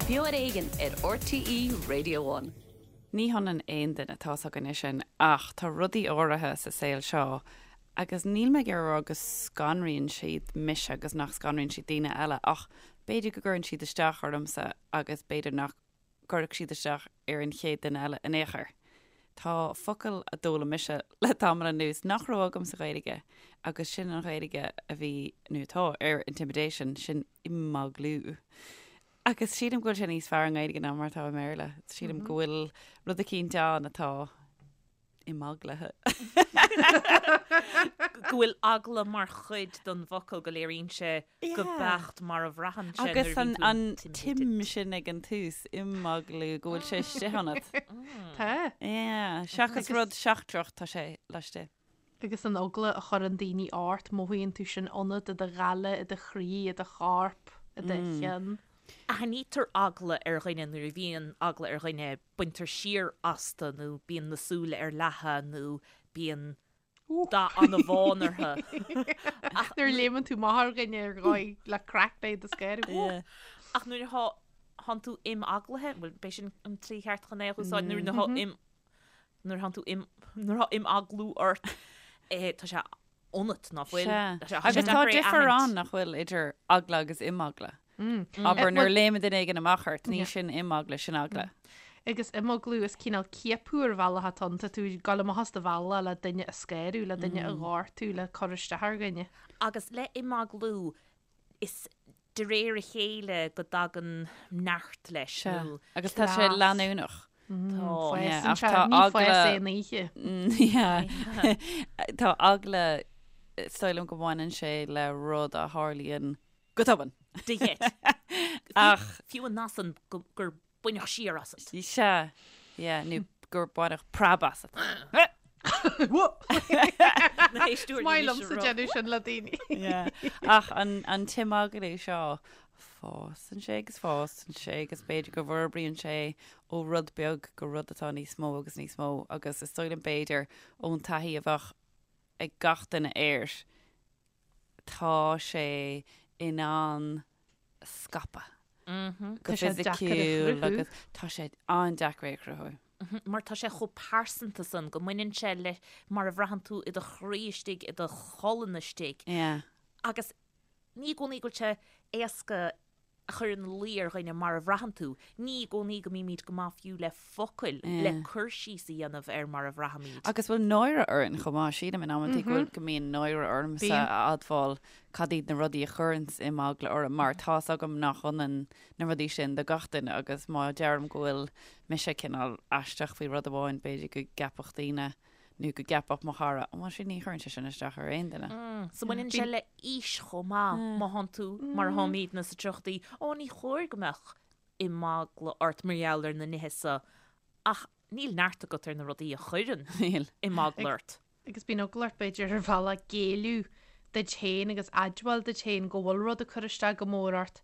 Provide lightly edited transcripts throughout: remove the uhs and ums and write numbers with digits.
Beo ar Éigean ar RTÉ Radio One. Ní hionann aon duine, tá's againne sin, ach tá rudaí áirithe sa saol seo agus níl mé ag iarraidh a rá go scanraíonn siad mise agus nach scanraíonn siad daoine eile ach b'fhéidir go gcuireann siad isteach ormsa agus b'fhéidir nach gcuirfeadh siad isteach ar an chéad duine eile in aon chor. Tá focal a d'fhoghlaim mise le tamall anuas nach raibh agam sa Ghaeilge agus sin an Ghaeilge a bhí, nó atá, ar intimidation, sin imeaglú. Agus sílim go bhfuil sé níos fearr i nGaeilge ná mar atá i mBéarla. Sílim go bhfuil rud eicínt ann atá imeaglaithe. Go bhfuil eagla mar chuid den bhfocal, go léiríonn sé go beacht mar a bhraitheann sé nuair a bhíonn tú Agus an tim sin ag an tús, imeaglú, go bhfuil sé istigh ionat. Tá. Yeah, seachas rud seachtrach, tá sé laistigh. Agus an eagla a chuireann daoine ort, mothaíonn tú sin ionat, i do ghoile, i do chroí, i do chorp, i do cheann. Aithnítear eagla ar dhuine nuair a bhíonn eagla ar dhuine, baintear siar astu nó bíonn na súile ar leathadh nó bíonn dath an-bhán orthu. Nuair a léimeann tú amach ar dhuine ar dhóigh le craic le do scaradh. Ach nuair atá thánn tú imeaglaithe, bhuel, b'é sin an tslí cheart chun é a úsáid, nuair atá im nuair thánn tú im nuair atá imeaglú ort, tá sé ionat, ná fuil? Sea. Tá sé Agus tá deacair é a difear aithint. ann, nach bhfuil, idir eagla agus imeagla. Abair nuair a léimeann duine éigin amach ort, ní sin imeagla, sin eagla. Agus imeaglú is cineál ciapadh ar bhealach atá ann, tá tú ag dul amach as do bhealach le duine a scanrú, le duine a ghortú, le cur isteach ar dhuine. Agus le imeaglú, is de réir a chéile go dtagann neart leis, Sea. nó. Agus tá sé Cleas. leanúnach. Tá. Fásann Ach sé, tá ní fás eagla- aon oíche. Yeah. Tá eagla, is dóigh liom go mbaineann sé le rud a tharlaíonn go tobann. De gheit. Ach. Fiú an nath san gur baineadh siar asat. Sea, yeah, nó gur baineadh preab asat. Na héisteoirí Is maith anois liomsa a rá. déanamh sin le daoine. Yeah. Ach an, an t-imeaglú seo, fásann sé agus fásann sé agus b'fhéidir go bhforbraíonn sé ó rud beag go rud atá níos mó agus níos mó agus is dóigh liom b'fhéidir ón taithí a bheadh ag gach duine air, tá sé in ann scaipeadh go Tá sé deacair a fisiciúil chruthú. agus tá sé an-deacair é a chruthú. Mar tá sé chomh pearsanta san go mbaineann sé le mar a bhraitheann tú i do chroí istigh, i do cholainn istigh. Yeah. Agus ní i gcónaí go bhfuil sé éasca a chur ina luí ar dhuine mar a bhraitheann tú. Ní i gcónaí go mbímid go maith fiú le focail le cur síos a dhéanamh ar mar a bhraithimid. Agus bhfuil náire orainn chomh maith? Sílim in amantaí go bhfuil, go mbíonn náire ormsa a admháil cad iad na rudaí a chuireanns imeagla orm mar tá's agam nach ionann na rudaí sin do gach duine agus má deirim go bhfuil mise cineál aisteach faoi rud amháin b'fhéidir go gceapfadh daoine nó go gceapfadh mo chara, bhuel sin ní chuireann sé sin isteach ar aon duine. So baineann sé le aois chomh maith, má thánn tú mar a tháimidne sa tríochaidí, ó ní chóir go mbeadh imeagla ort mar gheall ar na nithe so ach níl neart agat ar na rudaí a chuireann imeagla ort. Agus bíonn eagla ort b'fhéidir ar bhealach géilleadh duit féin agus admháil duit féin go bhfuil rud ag cur isteach go mór ort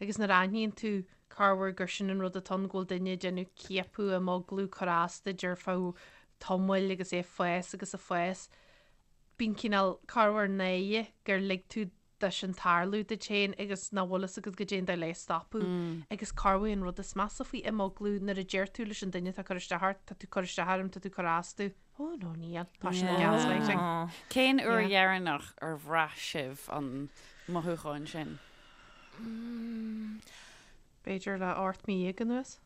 agus nuair a aithníonn tú corruair gur sin an rud atá ann, go bhfuil duine ag déanamh ciapadh, imeaglú, cur as duit ar feadh tamaill agus é ag fás agus ag fás. Bíonn cineál corruair náire gur lig tú dó sin tarlú duit féin agus nach bhfuil fhios agat goidé an dóigh le é a stopadh. Agus corruair an rud is measa faoi imeaglú nuair a deir tú leis an duine atá ag cur isteach ort, tá tú ag cur isteach orm, tá tú ag cur as domh, oh no níl, tá sin gaslighting. Cén uair dheireanach ar bhraith sibh an mothúchán sin? B'fhéidir le 18 mí anuas.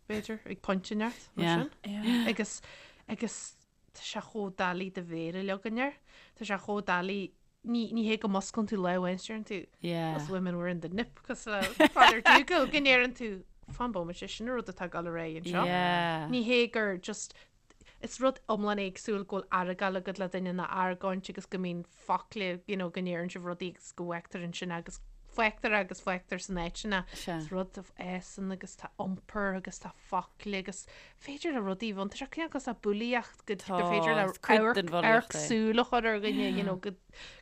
b'fhéidir, ag pointe inteacht, mar sin. Agus, agus tá sé chomh doiligh do mhéar a leagan air. Tá sé chomh doiligh, ní, ní hé go musclann tú lá amháin is deireann tú, Us women we're in the nip, cosúil le Father Dougal, go ndeireann tú, fan bomaite, sin an rud atá ag dul ar aghaidh anseo. Ní hé gur just, Is rud iomlán éagsúil go bhfuil argáil agat le duine ná argóint agus go mbíonn focla, you know, go ndeireann sibh rudaí agus go bhfágtar ansin agus fágtar agus fágtar san áit sin é. Is rud a fhásann agus tá iompar agus tá focla agus féidir le rudaí bhun, tá sé cineál cosúil le bulaíocht go gur féidir le amharc súl a chur ar dhuine, you know, go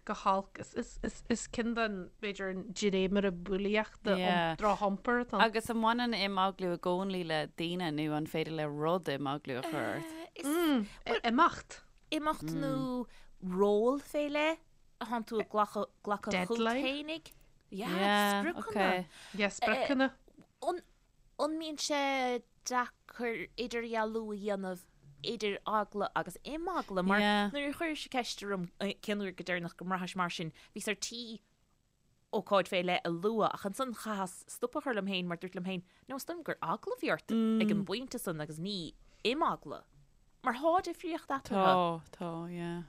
go holc. Is, is, is, is ceann den, b'fhéidir, an dréimire bulaíochta, Yeah. drochiompar atá ann. Agus an mbaineann imeaglú i gcónaí le daoine nó an féidir le rud imeaglú a chur ort? Is Imeacht. imeacht nó ról fé leith a thánn tú ag glacadh glacadh chugat Deadline. fhéinig. Yeah, Yeah, spriocanna. okay. Yeah, spriocanna. An. An mbíonn sé deacair idirdhealú a dhéanamh idir eagla agus imeagla? Mar nuair a chuiris ceist orm cén uair go deireanach go mbraithis mar sin, bhíos ar tí ócáid fé leith a lua ach ansan chaitheas stop a chur liom féin mar dúirt liom féin, no, is dóigh liom gur eagla a bhí ort ag an bpointe san agus ní imeagla. Mar thá difríocht eatarthu. Tá, tá, yeah.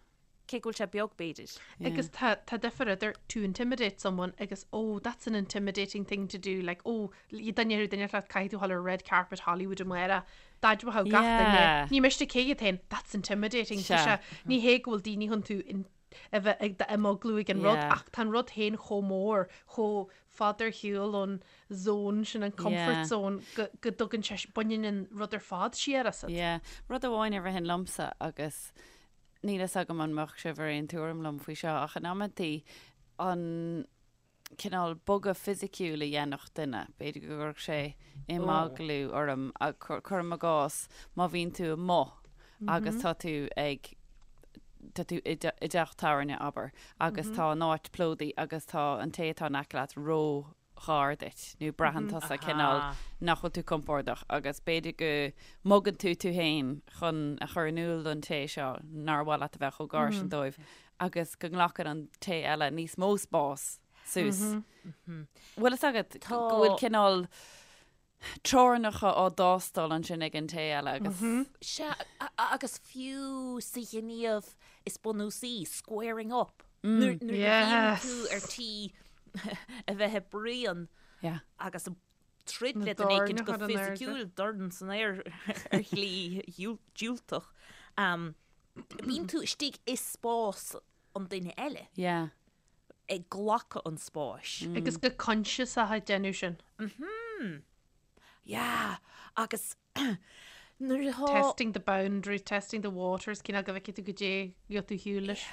Cé go bhfuil sé beag, b'fhéidir. Agus tá tá difear idir to intimidate someone agus oh that's an intimidating thing to do like oh dá ndéarfadh duine leat caithfidh tú a ghabháil ar red carpet Hollywood amárach d'admhódh gach duine ní miste cé hiad féin that's intimidating Tá sé ní hé go bhfuil daoine chun tú a bheith ag d'imeaglú ag an rud ach tá an rud féin chomh mór chomh fada ar shiúl ón zone sin an comfort zone go go dtugann sé baineann an rud ar fad siar asat. Yeah. Rud amháin a ritheann liomsa agus Níl fhios agam an mbeadh sibh ar aon tuairim liom faoi seo, ach in amantaí an cineál bogadh fisiciúil a dhéanfadh duine, b'fhéidir go gcuirfeadh sé imeaglú orm, cuirim i gcás má bhíonn tú amuigh agus tá tú ag, tá tú i dteach tábhairne, abair, agus tá an áit plódaithe agus tá an té atá in aice leat ró ghar duit nó braitheann tusa cineál nach bhfuil tú compordach agus b'fhéidir go mbogann tú tú féin chun a chur in iúl don té seo nár mhaith leat a bheith chomh gar sin dóibh agus go nglacann an té eile níos mó spás suas. Bhfuil fhios agat go bhfuil cineál teorainneacha á dtástáil ansin ag an té eile agus. Sea, agus fiú sa ghníomh is bunúsaí, squaring up, nuair a bhíonn tú ar tí a bheith ag bruíon agus ag troid le duine éicint go fisiciúil, dorn san aer ar shlí diúltach, bíonn tú istigh i spás an duine eile. ag glacadh an spáis. Agus go coinsiasach ag déanamh sin. Mhm. Yeah. Agus nuair atá. Testing the boundaries, testing the waters, cineál go bhfeicfidh tú goidé gheobhaidh tú ar shiúl leis.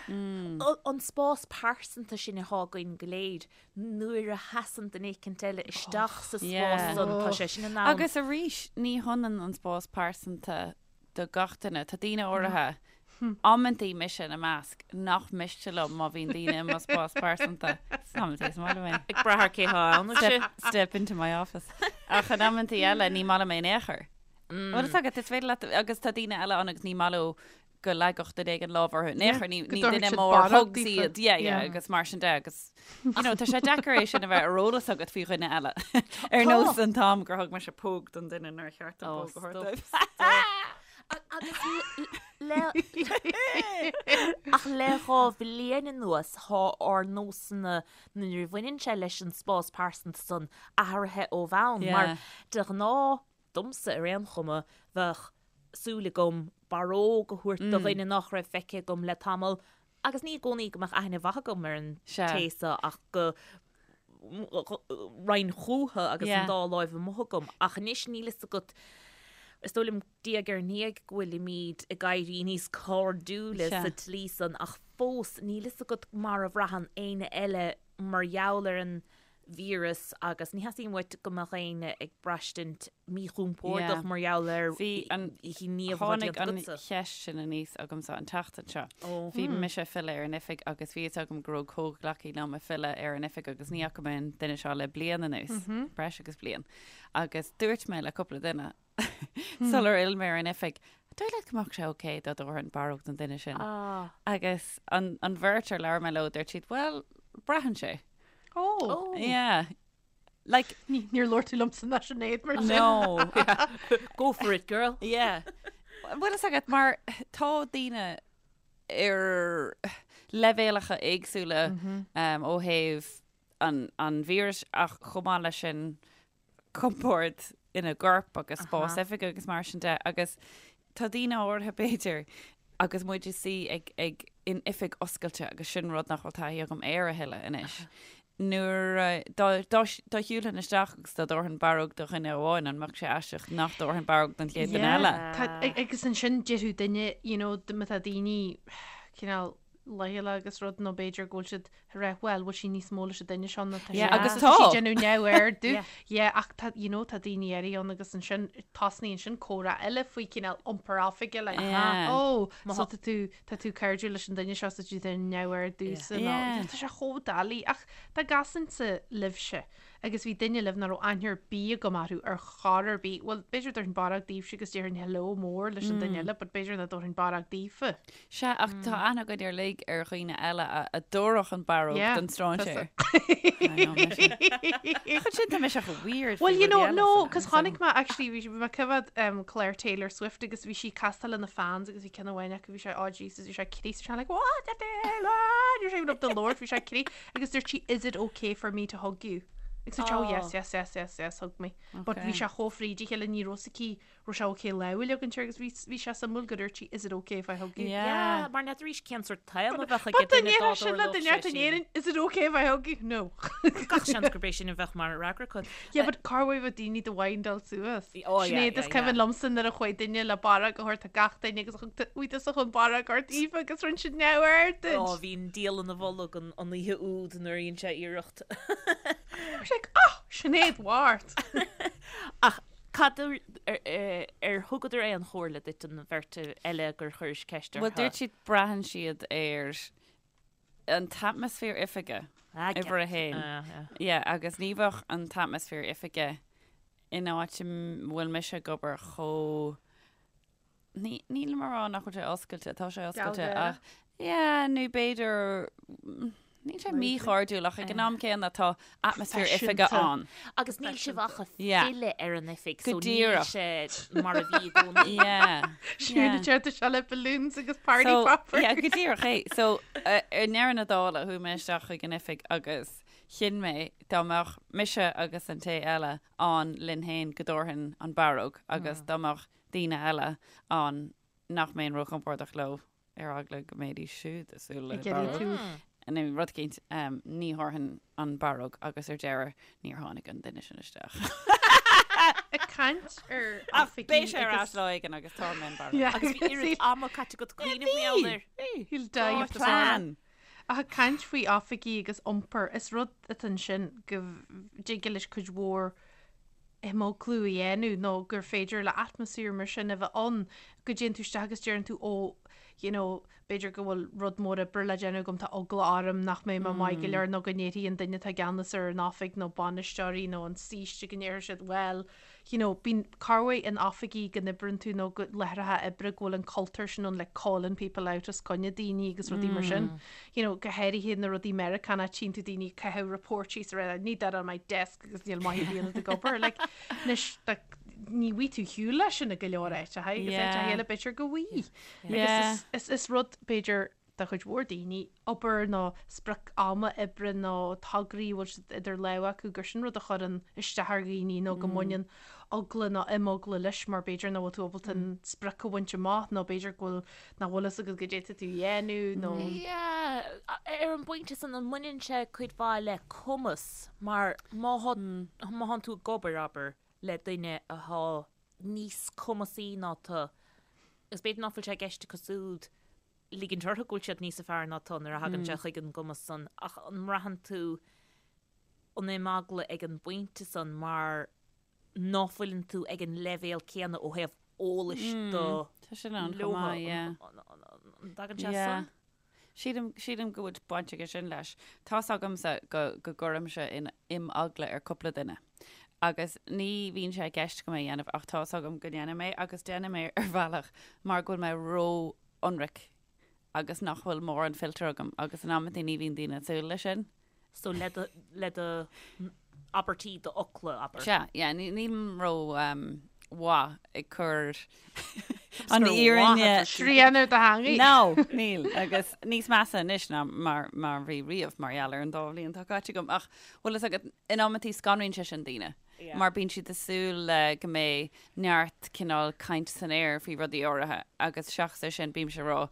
An spás pearsanta sin atá againn go léir, nuair a sheasann duine éicint eile isteach sa spás san, tá sé sin in ann. Agus arís, ní hionann an spás pearsanta do gach duine. Tá daoine áirithe, amantaí mise ina measc, nach miste liom má bhíonn daoine i mo spás pearsanta. Is amantaí is maith liom é. Ag brath ar cé thá ann, is ea. Step into my office. Ach in amantaí eile ní maith liom é in aon chor. Bhfuil fhios agat, is féidir leat, agus tá daoine eile ann agus ní maith leo go leagfadh duine éigin lámh orthu. In aon chor, ní duine mór hugs iad. Yeah, yeah, agus mar sin de, agus you know, tá sé deacair é sin a bheith ar eolas agat faoi dhuine eile. Ar nós an t-am gur thug mise póg don duine nár cheart dom póg a thabhairt dóibh. Agus le ach le 2 bhliain anuas thá ár nósanna nuair a bhaineann sé leis an spás pearsanta san athraithe ó bhonn mar de ghnáth domsa ar aon chuma, bheadh súil agam barróg a thabhairt do dhuine nach raibh feicthe agam le tamall agus ní i gcónaí go mbeadh aithne mhaith agam ar an té so ach go raghainn chúthu agus an dá láimh amuigh agam. Ach anois níl fhios agat, is dóigh liom diaidh ar ndiaidh go bhfuilimid ag éirí níos cairdiúla sa tslí san ach fós níl fhios agat mar a bhraitheann éinne eile mar gheall ar an víreas agus ní theastaíonn uait go mbeadh éinne ag braistint míchompordach mar gheall ar ghníomh atá déanta agatsa. Tháinig an cheist sin aníos agamsa an tseachtain seo. Bhí mise ag filleadh ar an oifig agus bhí fhios agam go raibh comhghleacaí liom ag filleadh ar an oifig agus ní fhaca mé an duine seo le bliain anuas, breis agus bliain. Agus dúirt mé le cúpla duine sular fhill mé ar an oifig, an dóigh leat go mbeadh sé ok dá dtabharfainn barróg don duine sin? Agus an bheirt ar labhair mé leo, dúirt siad, well, braitheann sé. Oh. Yeah. Like, Níor labhair tú liomsa ná Sinéad mar sin. No. Go for it, girl. Yeah. Bhfuil fhios agat mar tá daoine ar leibhéalacha éagsúla um, ó thaobh an, an víris ach chomh maith leis sin compord ina gcorp agus spás oifige agus mar sin de agus tá daoine áirithe b'fhéidir agus muid ag suí ag, ag, in oifig oscailte agus sin rud nach bhfuil taithí agam air a thuilleadh anois. Nuair a, dá, dá, dá shiúlfainn isteach agus dá dtabharfainn barróg do dhuine amháin, an mbeadh sé aisteach nach dtabharfainn barróg don chéad duine eile? Tá, agus ansin déarfadh duine, you know, má tá daoine cineál leochaileach agus rud nó b'fhéidir go bhfuil siad ag rá bhuel bhfuil sí níos mó leis an duine seo ná tá Yeah, agus tá. sí ag déanamh neamhaird Yeah, ach tá you know tá daoine áirithe ann agus ansin tosnaíonn sin comhrá eile faoi cineál iompar oifige like Yeah. oh so tá tú tá tú cairdiúil leis an duine seo so tú déanamh neamhaird domhsa nó Yeah. tá sé chomh doiligh ach dá gcasfainnse libhse. Agus bhí duine libh nach raibh aithne ar bith agam orthu ar chor ar bith. Bhuel, b'fhéidir dtabharfainn barróg daoibhse agus déarfainn hello mór leis an duine eile, but b'fhéidir nach dtabharfainn barróg daofa. Sea, ach tá aithne againn uilig ar dhaoine eile a dtabharfadh an barróg Yeah, don stráinséir. tá I know, mise. Ach ansin tá mise chomh weird faoi Well, you rudaí know, eile no, san- cos san- chonaic mé, actually, bhí mé ag coimhéad um, clár Taylor Swift agus bhí sí ag castáil lena fans agus bhí ceann amháin acu, bhí sé, oh Jesus, bhí sé ag crith, bhí sé like, what the hell, ah, bhí sé up the Lord, bhí sé ag crith. Agus dúirt sí, is it okay for me to hug you? Agus dúirt sé, oh yes, yes, yes, yes, yes, hug me. But bhí sé chomh fríd a chéile, ní raibh fhios aici, raibh sé okay lámh a leagaint air agus bhí, bhí sé suimiúil go dúirt sí, is it okay if I hug you? Yeah, mar n'fheadar arís cén sórt t-am a bheadh ag But duine dá dá ndéarfadh sin le dtarlódh duine sé ort in sin. Éirinn, is it okay if I hug you? No. Gach seans gurb é sin a bheadh mar fhreagra acu. Yeah, but cá bhfuil bheadh daoine do mhaindeáil suas? Oh, yeah, Sinéad, yeah, is cuimhin yeah. liomsa nuair a chuaigh duine le barróg a thabhairt do gach duine agus thug tú bhí tusa chun barróg a thabhairt Aoife agus rinne siad neamhaird duit. Ó, bhí an diabhal ina bholg an an oíche úd nuair a dhein sé iarracht. Bhí sé like, oh, Sinéad Mhart! Ach cad ar, ar, ar thugadar aon chomhairle duit an bheirt eile gur chuiris ceist Bhuel, orthu? dúirt siad braitheann siad ar an t-atmaisféar oifige, uimhir a haon. Yeah, agus ní bheadh an t-atmaisféar oifige in áit a bhfuil mise ag obair chomh ní nílim a rá nach bhfuil sé oscailte, tá sé oscailte ach yeah, nó b'fhéidir níl sé míchairdiúil ach ag an am céanna tá atmaisféar oifige ann. Agus níl sibh ach ag filleadh ar an oifig, so níl sé mar a bhí i gcónaí. Yeah. Siúd a deir sé le balloons agus party poppers. Yeah, go díreach é. So, ar ndeireadh na dála, chuaigh mé isteach chuig an oifig agus chinn mé dá mbeadh mise agus an té eile ann linn féin go dtabharfainn an barróg agus dá mbeadh daoine eile ann nach mbeinn róchompordach leo ar eagla go mbeidís siúd ag súil le barróg. Nó rud éicint, ní thabharfainn an barróg agus ar deireadh níor tháinig an duine sin isteach. Ag caint ar Ach beidh sé ar ais lá éigin agus tabharfaidh mé an barróg. Agus bhí oiread ama caite agat cuimhneamh mar gheall air. He'll die of the plan. Ach ag caint faoi oifigí agus iompar, is rud atá ansin go dtig leis cuid mhór imeaglú a dhéanamh nó gur féidir le atmaisféar mar sin a bheith ann, go dtéann tú isteach agus deireann tú ó, you know, b'fhéidir go bhfuil rud mór oibre le déanamh agam, tá eagla orm nach mbeidh mé maith go leor nó go ndéarfaidh an duine atá i gceannas ar an oifig nó bainisteoirí nó an saoiste go ndéarfaidh siad bhuel, you know, bíonn corruair in oifigí go n-oibreann tú nó go láithreacha oibre go bhfuil an cultúr sin ann like calling people out os coinne daoine agus rudaí mar sin. You know, go háirithe na rudaí Meiriceánach tchíonn tú daoine ag caitheamh report síos a rá I need that on my desk agus níl maith ar bith ionat ag obair. Like, anois, like, ní bhfaighidh tú shiúl leis sin i go leor áiteacha agus Yeah. áiteacha eile b'fhéidir go bhfaighidh. Yeah. Agus is, is, is rud b'fhéidir do chuid mhór daoine, obair nó sprioc ama oibre nó tograí a bhfuil siad idir lámha acu gur sin rud a chuireann isteach ar dhaoine nó go mbaineann eagla nó imeagla leis mar b'fhéidir nach bhfuil tú ábalta an sprioc a bhaint amach nó b'fhéidir go bhfuil nach bhfuil fhios agat goidé atá tú a dhéanamh nó. Yeah, ar an bpointe san an mbaineann sé cuid mhaith le cumas mar má má thánn tú ag obair, abair, le duine athá níos cumasaí ná tú agus b'fhéidir nach bhfuil sé i gceist acu siúd ligint orthu go bhfuil siad níosa fearr ná tú nuair a thagann sé chuig an gcumas san ach an mbraitheann tú an imeagla ag an bpointe san mar ná fuileann tú ag an leibhéal céanna ó thaobh eolais de Tá sin ann chomh maith, yeah. An dtagann sé san? Sílim, sílim go bhfuil baint aige sin leis. Tá's agamsa go, go gcuirimse in imeagla ar cúpla duine. Agus ní bhíonn sé i gceist agam é a dhéanamh ach tá's agam go ndéanaim é agus déanaim é ar bhealach mar go bhfuil mé ró-ionraic agus nach bhfuil mórán filter agam agus in amantaí ní bhíonn daoine ag súil leis sin. So le do, le do abairtí, do fhocla, abair. Sea, yeah, nílim ró mhaith ag cur an fhírinne. Srian ar do theangaidh. No, níl, agus níos measa anois ná mar, mar bhí riamh mar gheall ar an dá bhliain atá caite agam. Ach bhfuil fhios agat, in amantaí scanraíonn sé sin daoine. Mar bíonn siad ag súil le go mbeidh neart cineál caint san aer faoi rudaí áirithe agus seachas é sin bímse ag rá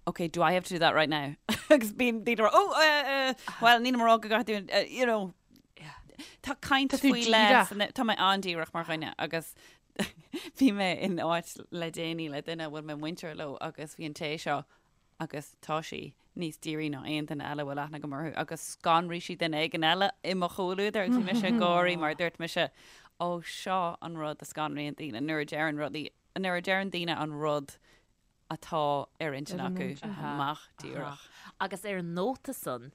ok, do I have to do that right now? agus bíonn daoine ag rá oh, uh, uh, well nílim ag rá go gcaithfidh tú, uh, you know, tá caint Tá tú faoi leith díreach. Tá mé an-díreach mar dhuine agus bhí mé in áit le déanaí le duine a bhfuil mé muinteartha leo agus bhí an té seo agus tá sí níos dírí ná aon duine eile a bhfuil aithne agam orthu agus scanraigh sí duine éigin eile i mo chomhluadar agus bhí mise ag gáirí mar dúirt mise ó seo an rud a scanraíonn daoine nuair a deireann rudaí nuair a deireann daoine an rud atá ar intinn acu amach díreach. Agus ar an nóta san,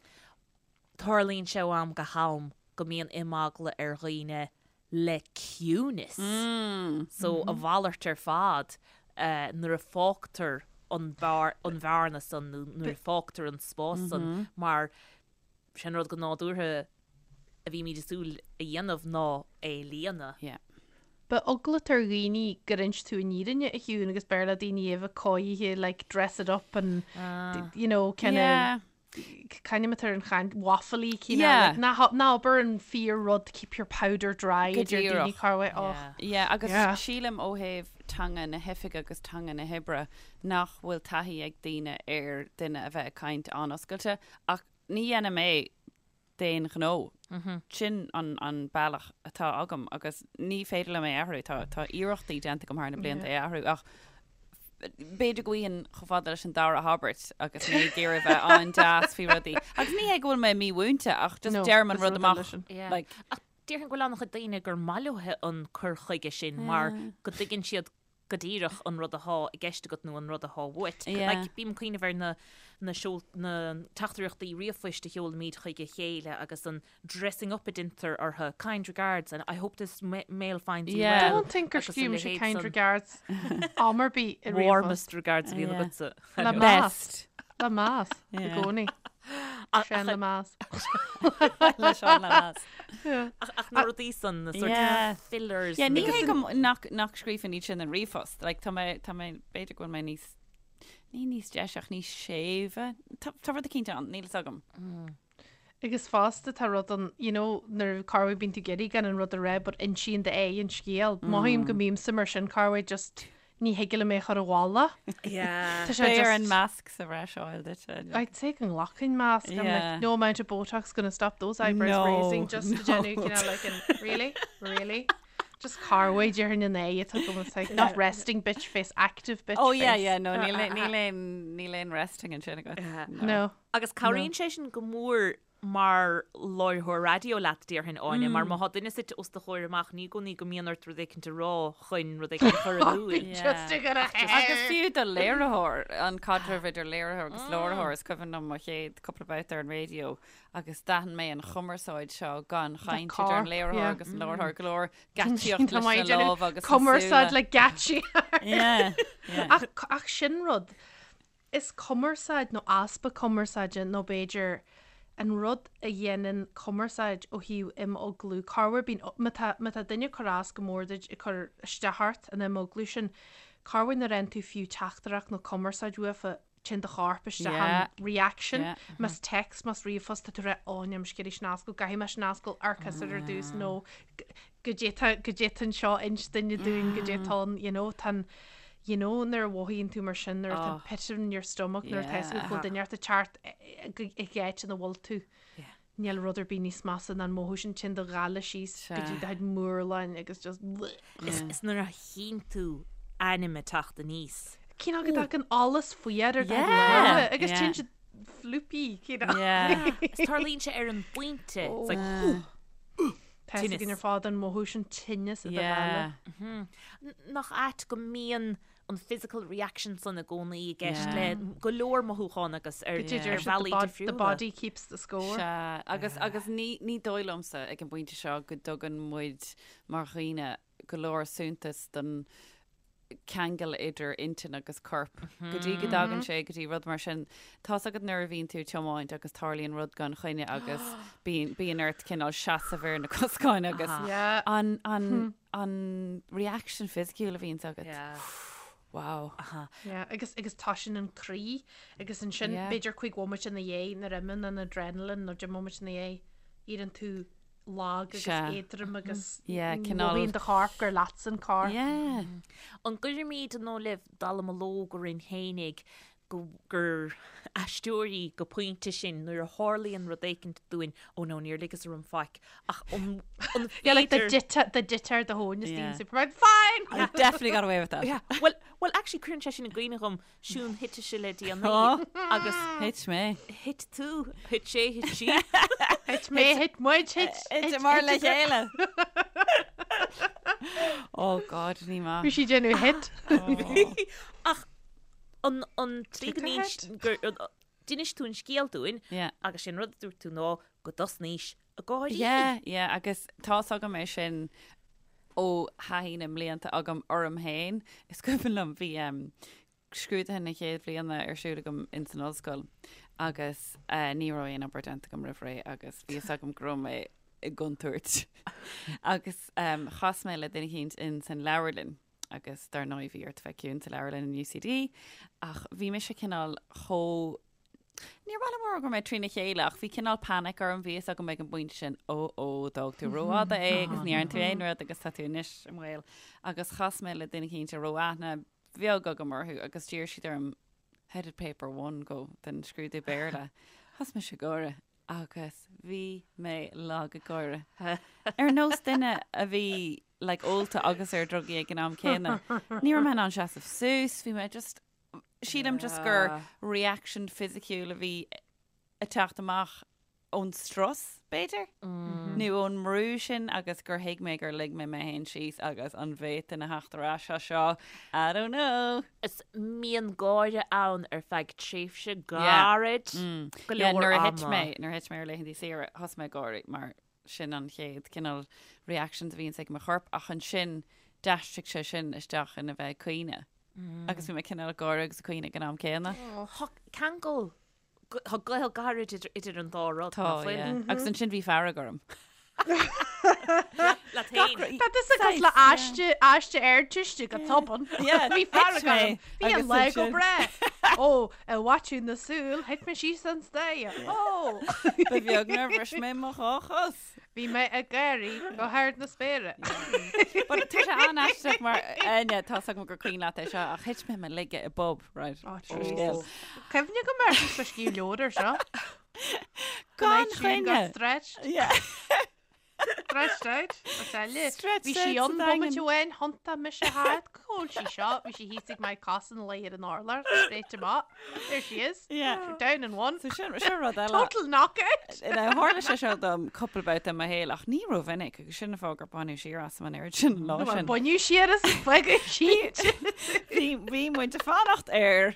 tarlaíonn sé ó am go ham. go mbíonn imeagla ar dhaoine le ciúnas. So a mhalairt ar fad nuair a fágtar an bhearna san nó nuair a fágtar an spás san mar sin rud go nádúrtha a bhímid ag súil a dhéanamh ná é a líonadh. Yeah. Beidh eagla ar dhaoine gur inis tú an fhírinne a Shiún agus b'fhearr le daoine a bheith cóirithe like dress it up and you know kind of Yeah. C'ainm atá ar an chaint waffly cineál Yeah. like ná ha- ná abair an fíor rud keep your powder dry Go a deir daoine díreach. corruair och. Yeah. Yeah, agus Yeah. sílim ó thaobh teanga na hoifige agus teanga na hoibre nach bhfuil taithí ag daoine ar duine a bheith ag caint an-oscailte ach ní dhéanaim é d'aon ghnó. Sin an an bealach atá agam agus ní féidir liom é a athrú. Tá tá iarrachtaí déanta agam thar na blianta é a athrú ach b'fhéidir go bhfaighinn chomh fada leis an dara habairt agus mé ag iarraidh bheith an-deas faoi rudaí. Agus ní hé go bhfuil mé mímhúinte ach just No, deirim an is rud rud eile amach. sin. Yeah. Like, Ach déarfainn go bhfuil an-chuid daoine gur maith leo an cur chuige sin mar go dtuigeann siad go díreach an rud athá i gceist agat nó an rud athá uait. Yeah. Like, bím ag cuimhneamh ar na, na seol, na teachtaireachtaí ríomhphoist a sheolaimid chuig a chéile agus an dressing up a deintear orthu, kind regards and I hope this mail finds you Yeah. well. Don't think gur agus a scríobh mise leithéid kind san. regards am ar bith i ríomhphost. Warmest regards a bhíonn Yeah. agatsa. Le meas. best. Le meas. I Yeah. gcónaí. Seán le meas. Le Seán le meas. Ach, ach na rudaí san, na sort Yeah. of fillers. Yeah, ní agus hé go m- nach, nach scríobhaim iad sin in ríomhphost. Like, tá mé, tá mé, b'fhéidir go bhfuil mé níos, ní níos deise ach níos séimhe. Tá, tá rud eicínt ann, níl fhios agam. Agus fosta tá rud ann, you know, nuair corruair bíonn tú ag iarraidh gan an rud a rá but insíonn d'aghaidh an scéal. Mothaím go mbímse mar sin corruair just ní thig liom é a chur i bhfolach. Yeah. Tá sé Beidh ar just- an masc sa bhreis a fháil duit. I'd say go nglacfainn masc. I'm Yeah. like, no amount of Botox gonna stop those eyebrows No, raising just to no. déanamh cineál like an really, really? Just corruair déarfainn an aghaidh atá agam, it's like not resting bitch face, active bitch Oh yeah, face. yeah, no, níl aon- níl aon níl aon resting ansin agat. No. Agus cabhraíonn sé sin go mór mar láithreoir raidió leat, déarfainn, Áine, mar má thá duine suite os do chomhair amach, ní i gcónaí go mbíonn ort rud éicint a rá chun rud éicint a chur in iúl. Just to get a Agus fiú do léiritheoir, an caidreamh idir léiritheoir agus láithreoir, is cuimhin liom mo chéad cúpla babhta ar an raidió agus d'aithin mé an chumarsáid seo gan chaint idir an corp, léiritheoir yeah. agus an láithreoir, go leor geáitsíocht Tá leis mé ag na déanamh lámha agus na Cumarsáid súile. le geáitsí. Yeah, yeah. Ach, ach sin rud. Is cumarsáid nó easpa cumarsáide nó b'fhéidir an rud a dhéanann cumarsáid ó thaobh imeaglú, corruair bíonn, má tá, má tá duine ag cur as go mór duit, ag cur isteach ort, an imeaglú sin, corruair nuair a fhaigheann tú fiú teachtaireacht nó cumarsáid uafa, téann do chorp isteach Yeah. in reaction, Yeah. más text, más ríomhphost, tá tú ag rá, ó, níl mise ag iarraidh sin a oscailt, caithfidh mé sin a oscailt ar cosúil ar dtús nó goidé tá, goidé tá anseo inis duine dúinn, goidé tá ann, you know, tá an, You know nuair a mhothaíonn tú mar sin, nuair atá pit in your stomach, nuair atá fhios agat go bhfuil duine ort ag teacht i gcáit ina bhfuil tú. Níl rud ar bith níos measa ná an mothú sin, téann do ghála síos go dtí do chuid murláin agus just bleh. Is nuair a tchíonn tú ainm ag teacht aníos. Cineál go dtagann allas faoi ar do chuid lámha agus téann siad floopy, cineál. Is tarlaíonn sé ar an bpointe. It's like, ooh. Tá fhios againn ar fad an mothú sin tinneas i do ghála. Nach ait go mbíonn an physical reaction san i gcónaí i gceist le go leor mothúchán agus ar bhealaí difriúla. The body keeps the score. Sea, agus agus ní ní dóigh liomsa ag an bpointe seo go dtugann muid mar dhaoine go leor suntas don ceangal idir intinn agus corp go dtí go dtagann sé go dtí rud mar sin. Tá's agat nuair a bhíonn tú ag tiomáint agus tarlaíonn rud gan choinne agus bíonn bíonn ort cineál seasamh ar na coscáin agus Yeah. an an an reaction fisiciúil a bhíonns agat. Yeah. Wow. Yeah, agus agus toisíonn an croí agus ansin Yeah. b'fhéidir cúig bhomaite ina dhiaidh nuair a imíonn an adrenaline nó deich mbomaite ina dhiaidh, éiríonn tú lag agus Sea. éadrom agus Yeah, cineál- mothaíonn do chorp gur leatsa an corp. Yeah. An gcuirimid an dóigh libh dallamullóg orainn fhéinig go gur aisteoirí go pointe sinn nuair a tharlaíonn rud éicint dúinn, oh no, níor ligeas orm faic, ach an an Yeah, like the féidir dita the dita ar do thóin is Yeah. daoine Superman, fine! I definitely got away with that. Yeah, well, well actually cuireann sé sin i gcuimhne dhom Siún thit ise le déanaí agus Thit mé. thit tú, thit sé, thit sí. Thit mé, thit muid, thit, Thit mar le chéile. Oh God, ní maith. Bhí sí déanamh hit. Ach an an tslí go Thit a n-ins- gur- an- d'inis tú an scéal dúinn Yeah. agus sin rud a dúirt tú ná go dtosnaís. Ag gáirí. Yeah, yeah, agus tá's agam é sin ó thaithí na mblianta agam orm féin. Is cuimhin liom bhí um, scrúduithe na chéad bhliana ar siúl agam ins an ollscoil agus uh, ní raibh aon obair déanta agam roimh ré agus bhí fhios agam go raibh mé i gcontúirt. agus um, chas mé le duine eicínt ins an leabharlann agus dar ndóigh bhí ort bheith ciúin sa leabharlann in UCD ach bhí mise cineál chomh Níor mhaith liom a rá go raibh mé trína chéile ach bhí cineál panic orm, bhí fhios agam ag an bpointe sin, ó ó, d'fhág tú rófhada é agus ní dhearna tú aon rud agus tá tú anois i mbaol. Agus chas mé le duine eicínt a raibh aithne bheag agam orthu agus d'iarr siad orm how did paper one go den scrúdú Béarla. Thosaigh mise ag gáire agus bhí mé lag ag gáire. Ar nós duine a bhí like ólta agus ar drugaí ag an am céanna. Ní raibh mé in ann seasamh suas, bhí mé just Sílim just gur reaction fisiciúil a bhí ag teacht amach ón strus, b'fhéidir, nó ón mbrú sin agus gur thuig mé gur lig mé mé féin síos agus an bhféadfainn a theacht ar ais as seo, I don't know. Is mbíonn gáire ann ar feadh tréimhse gairid go Yeah, leor nuair a thit ama. mé, nuair a thit mé ar laethanta saoire, thosaigh mé ag gáirí mar sin an chéad cineál reactions a bhíonns ag mo chorp ach ansin d'aistrigh sé sin isteach ina bheith ag caoineadh. Agus bhí mé cineál ag gáire agus ag caoineadh ag an am céanna. Tá ceangal, tá gaol gairid idir an dá rud, Tá, nach bhfuil? yeah. Agus ansin bhí fearg orm. Leat féin. Tá tusa cosúil le aiste, aiste Ardteiste go tobann. Yeah, Bhí fearg thit mé orm. Bhí an agus lá go ansin- breá. Ó, i bhfaiteadh na súl, thit mé síos an staighre. Ó! Ba bheag nár bhris mé mo dhá chos. Bhí mé ag gáirí go hard na spéire. But tá sé an-aisteach mar Áine, tá 's agam gur cuimhin leat é seo ach thit mé i mo laige i bpub, right? Ó, Seo scéal. Cuimhne agam air bhí scríobh leabhar ar seo. Gan Got choinne. stretched. Yeah. Stretched out. Is eile. Stretched Bhí sí out an sa bomaite Daingean. amháin, thiontaigh mise thart, cá bhfuil sí seo, bhí sí thíos ag Mike Cossin léi ar an urlár, straight amach. There she is. Yeah. Down in one. So sin sin rud eile. Total knockout. Now, tharla sé seo dom cúpla babhta i mo shaol ach ní rómhinic agus sin an fáth gur baineadh siar asam an oiread sin an lá Bhuel, sin. baineadh siar as fágadh sí. Bhí bhí muid ag fanacht ar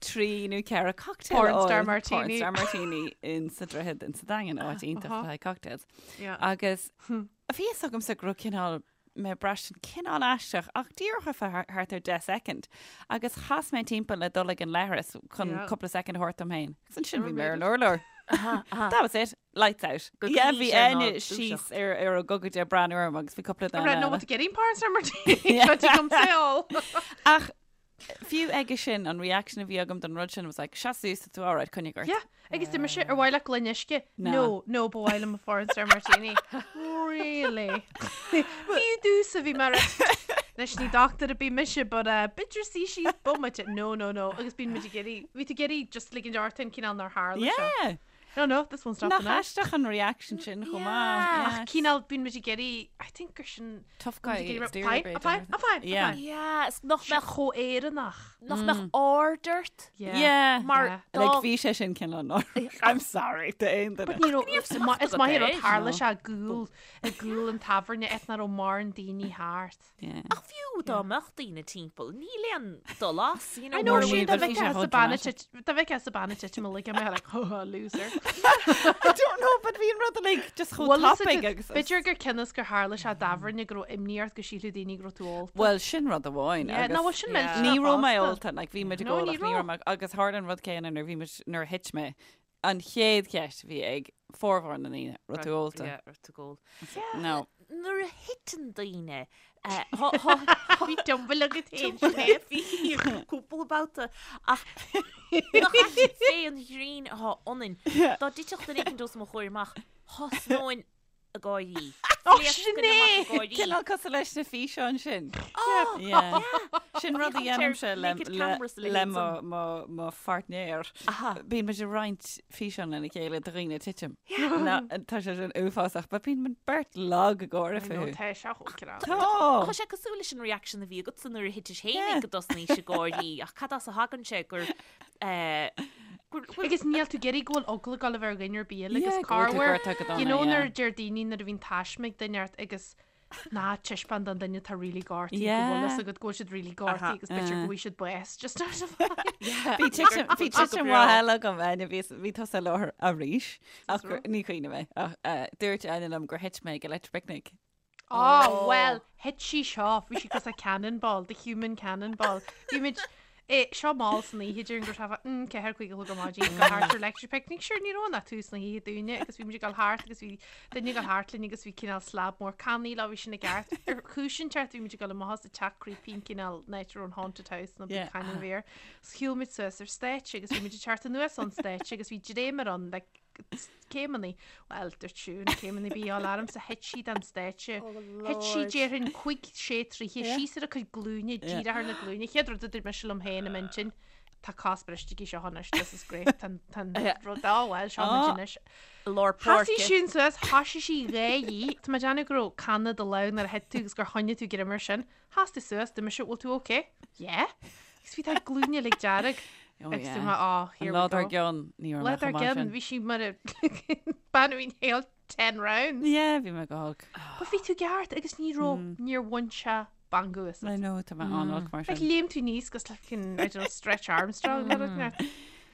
trí nó ceithre cocktail Porn a fháil. star martini. Porn star martini in sa Droichead in sa Daingean, áit iontach le haghaidh cocktails. Yeah. Agus bhí fhios agamsa go raibh cineál mé ag braistint cineál aisteach ach díreach ar feadh thart ar 10 soicind. Agus chas mé timpeall le dul ag an leithreas chun Yeah. cúpla soicind a thabhairt dom féin. Agus ansin bhí mé ar an made urlár. That was it. Lights out. Go Yeah, gcoinní bhí sé ná Áine dúiseacht. síos ar ar a gogaide ag breathnú orm agus bhí cúpla duine Right, no, eile. what getting porn star martini. Yeah. Seo tú come say all. Ach Fiú aige sin, an reaction a bhí agam don rud sin was like, seas suas, tá tú alright, coinnigh ort. Yeah, agus dúirt mise, ar mhaith leat gloine uisce? No. No, no, ba mhaith liom porn star martini. Really? Fiú domhsa bhí mar Anois ní dochtúir ar bith mise, but uh, b'fhéidir suí síos bomaite. No, no, no. Agus bíonn muid ag iarraidh, bhí tú ag iarraidh just ligint ort an cineál nár tharla seo. Yeah! No, no, this one's Nach stopping now. aisteach an reaction sin chomh maith. Yeah. Yeah. Ach cineál bíonn muid ag iarraidh, I think gur sin Tough bíonn muid guy ag iarraidh, exterior fine, b'fhéidir. I'm fine, I'm fine, I'm Yeah. fine. Yeah, is nach Sé mbeadh chomh Éireannach. nach mbeadh aird ort Yeah. Yeah. mar Yeah. dá Like bhí sé sin cineál náireach. I'm sorry d'aon duine. But ní raibh- is maith is maith agat rud é. tharla No. sé i gcúl i gcúl an tábhairne áit nach raibh mórán daoine thart. Yeah. Ach fiú dá mbeadh daoine timpeall, níl aon dul as, you know, I know mar sin sin but dá bhí bheith sé as chomh a banna dramatic. dá bheith as a banna titim a like mé like oh loser. I don't know, but bhí an rud like just chomh Well, listen, tapaidh agus. B'fhéidir gur cionn is gur tharla sé i dtábhairne go raibh imní ort go sílfeadh daoine go raibh tú ólta. Well, sin rud amháin. Yeah, agus no, well, sin Yeah. millteanach Ní raibh mé fosta. ólta, like bhí muid ag No, ól ní ach ní raibh. raibh mé agus tharla an rud céanna nuair bhí muid nuair a thit mé. An chéad cheist a bhí ag formhór na ndaoine, raibh tú ólta. Yeah, raibh tú ag ól. No. Nuair a thiteann daoine, eh, thá- thá- Bhí tumble agat féin, Sinéad. Bhí cúpla babhta ach nach ait fé an ghrian atá ionainn. Dá dtitfeadh duine éicint os mo chomhair amach, thosnóinn ag gáirí. Ó, Phléascfainn amach ag gáirí. Cineál cosúil leis na físeáin sin. Ó, Yeah. Sin rud a Bhí an dhéanaimse le, naked le, cameras le le leithéid mo, san. mo, mo pháirtnéir. Aha. Bíonn muid ag roinnt físeán lena chéile de dhaoine ag titim. Na, tá sé sin uafásach, but bíonn muid beirt lag ag gáire I know, fúthu. tá sé chomh crá. Tá! Tá sé cosúil leis an reaction a bhí agatsa nuair a thitis Yeah. fhéinig go dtosnaís ag gáirí ach cad as a thagann sé gur eh, gur gur- Agus níl tú ag iarraidh go bhfuil eagla ag gabháil a bheith ar dhuine ar bith eile Yeah, agus go bhfuil tú corruair gortaithe go you dona, know yeah. nuair a deir daoine nuair a bhíonn taisme ag duine ort agus. Ná taispeáin don duine atá really gortaithe go bhfuil fhios agat go bhfuil siad really gortaithe agus b'fhéidir go bhfaighidh siad bás just out of Bhí titim bhí titim mhaith eile agam Áine bhí bhí tusa i láthair arís ach gur- ní cuimhin mé ach eh, dúirt Áine liom gur thit mé ag Electric Picnic. Oh, well, thit sí seo, bhí sí cosúil le cannonball, the human cannonball. Bhí muid Eh, seo mall san oíche déarfainn go raibh sé 4, 5 a chlog ar maidin ag dul thart ar Electric Picnic. Sure, ní raibh ann ach tús na hoíche dúinne agus bhí muid ag dul thart agus bhí duine ag dul thart linn agus bhí cineál slab mór cannaí leo, bhí sin i gceart. Ar chúis inteacht bhí muid ag dul amach as an teach creepy an cineál áit a raibh an haunted house nó bhí cannon bhí air. So shiúil muid suas ar stáitse agus bhí muid ag teacht anuas ón stáitse agus bhí dréimire ann like céimeanna, bhuel, dúirt Siún, céimeanna bí á alarm sa thit sí den stáitse. Thit sí déarfainn 5, 6 troithe síos ar a cuid glúine, díreach ar na glúine. Chéad rud a dúirt mise liom féin i m'intinn, tá cos briste aici seo anois, this is great, tá an rud, á bhuel, seo muid anois. Lár Thosaigh páirce. Siún suas, thoisigh sí dhá dhí. Tá mé ag déanamh go raibh canna i do lámh nuair a thit tú agus gur choinnigh tú greim air sin. Sheas tú suas, dúirt mise, bhfuil tú ok? Yeah. Agus bhí do ghlúine uilig dearg. Oh, Agus yeah. dúirt mé, oh, here An lá we dár go. gcionn, ní raibh Lá mé dár chomh maith gcionn, sin. bhí sí mar a bean a bhí inhaled 10 rounds. Yeah, bhí mé go holc. But bhí tú ceart agus ní raibh, níor bhain sé stangadh asat. I know, tá mé an-olc mar Like, sin. léim tú aníos cosúil le fucking, I don't know, Stretch Armstrong nó rud inteacht.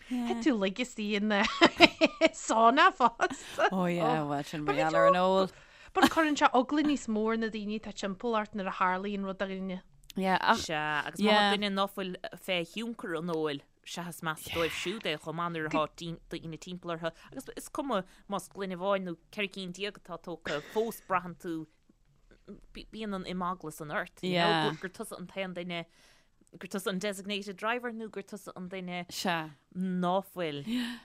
Thit tú lag istigh in sauna fosta. Oh yeah, well sin But mar bhí gheall ar an tú- ól. But cuireann sé eagla níos mó ar na daoine atá timpeall ort nuair a tharlaíonn rud do dhuine. Yeah, ach Sea, agus má tá Yeah. duine ná fuil fé thionchar an óil, sea is measa dóibh siúd é chomh maith nuair atá daoine timpeall orthu. Agus is cuma más gloine amháin nó 14 cinn atá tógtha, fós braitheann tú, bíonn an imeagla san ort, you know, Yeah. gur tusa an t-aon duine, gur tusa an designated driver nó gur tusa an duine Sea. ná fuil ar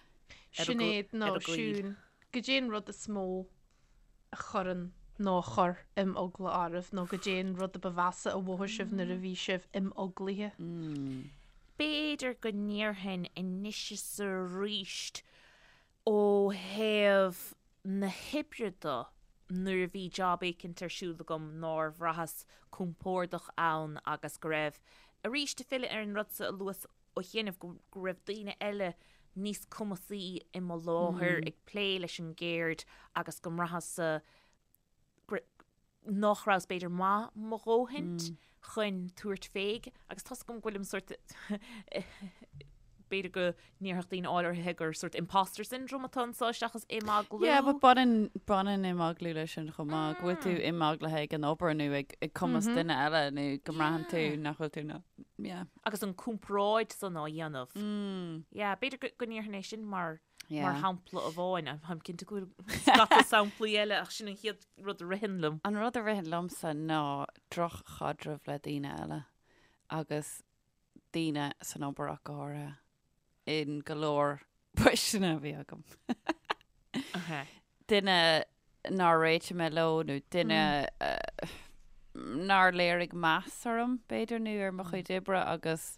a Sinéad nó ar a gcaoi. Siún, goidé an rud is mó a chuireann nó a chuir imeagla oraibh nó goidé an rud a ba mheasa a mhothaigh sibh nuair a bhí sibh imeaglaithe. B'fhéidir go ndéarfainn anois is arís ó thaobh na hoibre de, nuair a bhí job éicint ar siúl agam nár bhraitheas compordach ann agus go raibh, arís ag filleadh ar an rud sa a luas ó chianaibh go raibh daoine eile níos cumasaí i mo láthair ag plé leis an gceird agus go mbraitheas-sa nach rabhas b'fhéidir maith mo dhóthaint chun tabhairt féig agus tá's agam go bhfuilim sort b'fhéidir go ndéarfadh daoine áirithe gur sort imposter syndrome atá anseo seachas imeaglú. Yeah, but baineann, baineann imeaglú leis sin chomh maith, go bhfuil tú imeaglaithe ag an obair nó ag, ag cumas duine eile nó go mbraitheann tú nach bhfuil tú ná, yeah. Agus an comparáid san á dhéanamh. Yeah, b'fhéidir go, go ndéarfainn é sin mar, mar shampla amháin. Táim cinnte go bhfuil scata samplaí eile ach sin an chéad rud a ritheann liom. An rud a ritheann liomsa ná droch-chaidreamh le daoine eile agus daoine san obair ach go háirithe, in go leor poisteanna a bhí agam. Duine nár réitigh mé leo nó duine nár léirigh meas orm, b'fhéidir, nó ar mo chuid oibre agus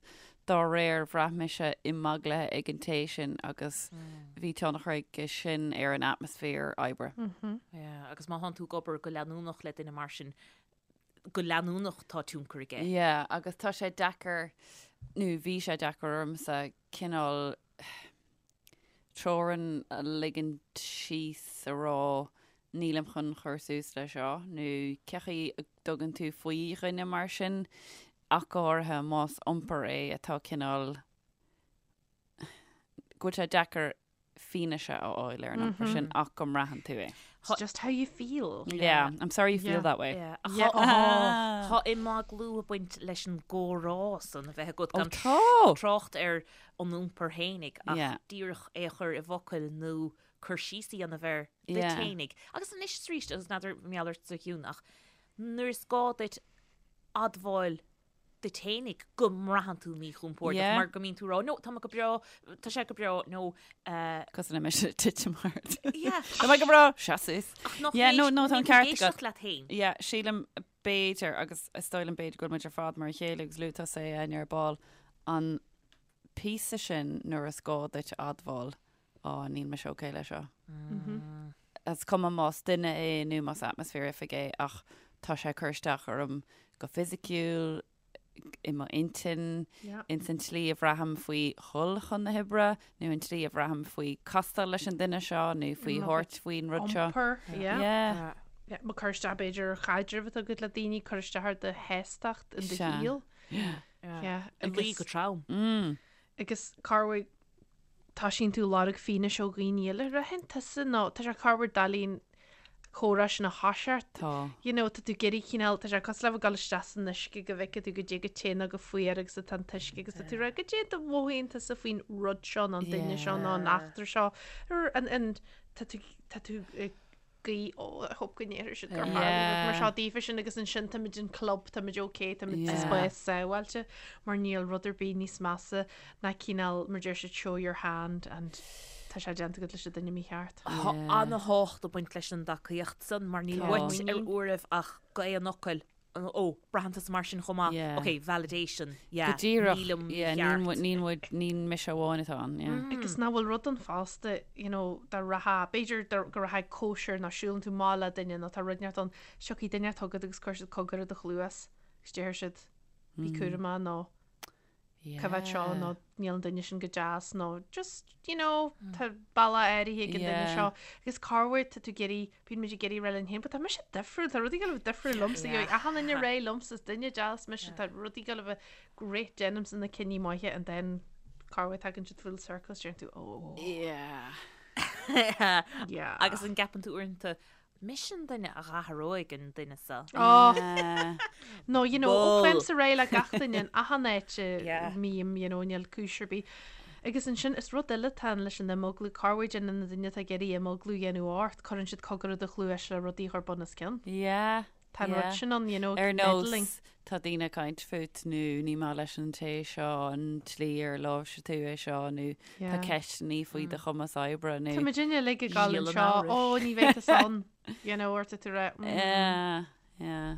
dá réir bhraith mise imeaglaithe ag an té sin agus bhí tionchar aige sin ar an atmaisféar oibre. Yeah, agus má thánn tú ag obair go leanúnach le duine mar sin, go leanúnach tá tionchar aige. Yeah, agus tá sé deacair, nó bhí sé deacair ormsa cineál teorainn a ligint síos a rá nílim chun cur suas le seo, nó cé chaoi a dtugann tú faoi dhuine mar sin, ach go háirithe más iompar é atá cineál, go bhfuil sé deacair fianaise a fháil ar an iompar sin ach go mbraitheann tú é. It's just how you feel. Yeah, I'm sorry you feel Yeah. that way. Yeah. Yeah. Tá tá imeaglú ag baint leis an gcomhrá san a bheith agat Ó gan tá! trácht ar an iompar fhéinig ach Yeah. díreach é a chur i bhfocail nó cur síos a dhéanamh air duit Yeah. fhéinig. Agus anois is arís, agus n'fheadar mar gheall ortsa a Shiún, ach nuair is gá duit admháil duit fhéinig go mbraitheann tú míchompordach Yeah. mar go mbíonn tú ag rá, no, tá mé go breá, tá sé go breá, nó eh, Cosúil le mise ag titim thart. yeah, Tá mé go breá, seas suas. ach nach Yeah, no, no, tá an níl tú ceart ag agat. éisteacht leat féin. Yeah, sílim b'fhéidir, agus is dóigh liom b'fhéidir go bhfuil muid ar fad mar a chéile agus luaigh tusa é Áine ar ball, an píosa sin nuair is gá duit admháil, á, níl mise okay le seo. Is cuma más duine é nó más atmaisféar oifige é ach tá sé ag cur isteach orm go fisiciúil, i mo intinn, ins an tslí a bhraithim faoi dhul chun na hoibre nó an tslí a bhraithim faoi castáil leis an duine seo nó faoi thabhairt faoin rud seo. Iompar, yeah. Yeah. Yeah, má cur isteach b'fhéidir ar chaidreamh atá agat le daoine, cur isteach ar do shástacht in do shaol. Yeah. Ag luí go trom. Mm. Agus corruair toisíonn tú lorg fianaise ó dhaoine eile ritheann tusa nó tá sé corruair doiligh an comhrá sin a thoiseacht. Tá. You know, tá tú ag iarraidh cineál, tá sé cosúil le bheith ag dul isteach san uisce go bhfeicfidh tú goidé chomh te nó chomh fuar agus atá an t-uisce agus tá tú ag rá goidé a mhothaíonn tusa faoin rud seo nó an duine seo nó an eachtra seo. Ar an, tá tú, tá tú ag guí, oh, I hope go ndéarfaidh siad gur tharla rud mar seo daofa sin agus ansin táimid in club, táimid ok, táimid sa spás sábháilte mar níl rud ar bith níos measa ná cineál, mar deir siad, show your hand and tá sé déanta agat leis an duine mícheart. Tá ana-thábhacht ag baint leis an dtacaíocht san mar níl uait ar uairibh ach go aon fhocal Ó, braitheann tusa mar sin chomh maith. Yeah. Ok, validation, yeah. Go díreach, Nílim yeah, níl mícheart. muid, níl muid, ní mise amháin atá ann, yeah. Agus nach bhfuil rud ann fosta, you know, dá rachfá, b'fhéidir dá, go rachfá ag cóisir nó siúlann tú amach le duine nó tá rud inteacht ann, tiocfaidh duine chugat agus cuirfidh siad cogar i do chluas agus déarfaidh siad, bí cúramach nó coimhéad seo nó níl an duine sin go deas nó just, you know, tá bealach áirithe ag an duine seo. Agus corruair tá tú ag iarraidh, bíonn muid ag iarraidh rá linn féin, but tá mise difriúil, tá rudaí ag dul a bheith difriúil liomsa, gheobhaidh achan duine réidh liomsa, is duine deas mise, tá rudaí ag dul a bheith great, déanaimse na cinní maithe and then corruair tagann siad full circle is deireann tú, oh. Yeah. Yeah. Agus an gceapann tú uaireanta, Mise an duine a dh'athróidh an duine seo. Oh. No, you know, ó faighimse réidh le gach duine in achan áit a mbím, you know, níl cúis ar bith. Agus ansin, is rud eile atá ann leis an imeaglú, corruair déanann na daoine atá ag iarraidh imeaglú a dhéanamh ort, cuireann siad cogar i do chluais le rudaí a chur bun os cionn. Yeah. Tá an rud sin ann, you know, Ar nós, meddling. tá daoine ag caint fút nó ní maith leis an té seo an tslí ar láimhsigh tú é seo nó tá ceisteanna faoi do chumas oibre nó. Tá muidinne uilig ag gabháil Síol an anseo, amhrais. ó, ní bheidh tusa ann, you know, or tá tú rá, mm. Yeah, yeah.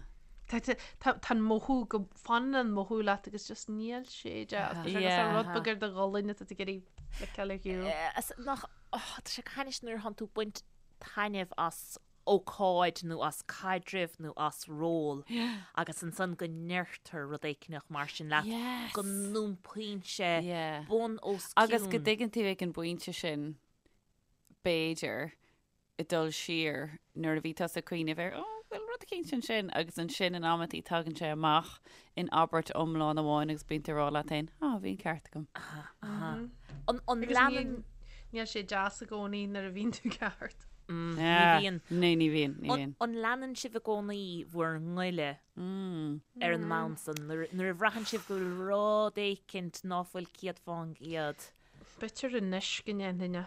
Tá tá tá tá an mothú go fanann an mothú leat agus just níl sé deas. Tá sé cosúil Yeah. rud beag ar do ghualainn atá tú ag iarraidh fliceáil ar shiúl. Eh, as- Nach, oh, tá sé go hainnis nuair a thánn tú ag baint taitneamh as ócáid nó as caidreamh nó as ról agus ansan go ndeirtear rud éicneach mar sin leat, go n-iompaíonn sé bun os cionn. Agus go dtuigeann tú ag an bpointe sin, b'fhéidir, ag dul siar nuair a bhí tusa ag cuimhneamh ar, oh, bhfuil rud eicínt ansin agus ansin in amantaí tagann sé amach in abairt iomlán amháin agus bíonn tú ag rá leat féin, ah, bhí an ceart agam. An leanann. Níl sé deas i gcónaí nuair a bhíonn tú ceart. Ní bhíonn. Ní, ní bhíonn, ní bhíonn. An leanann sibh i gcónaí bhur ngoile ar an mbonn san nuair a bhraitheann sibh go bhfuil rud éicint ná fuil 100%? B'fhéidir anois go ndéanfainn é.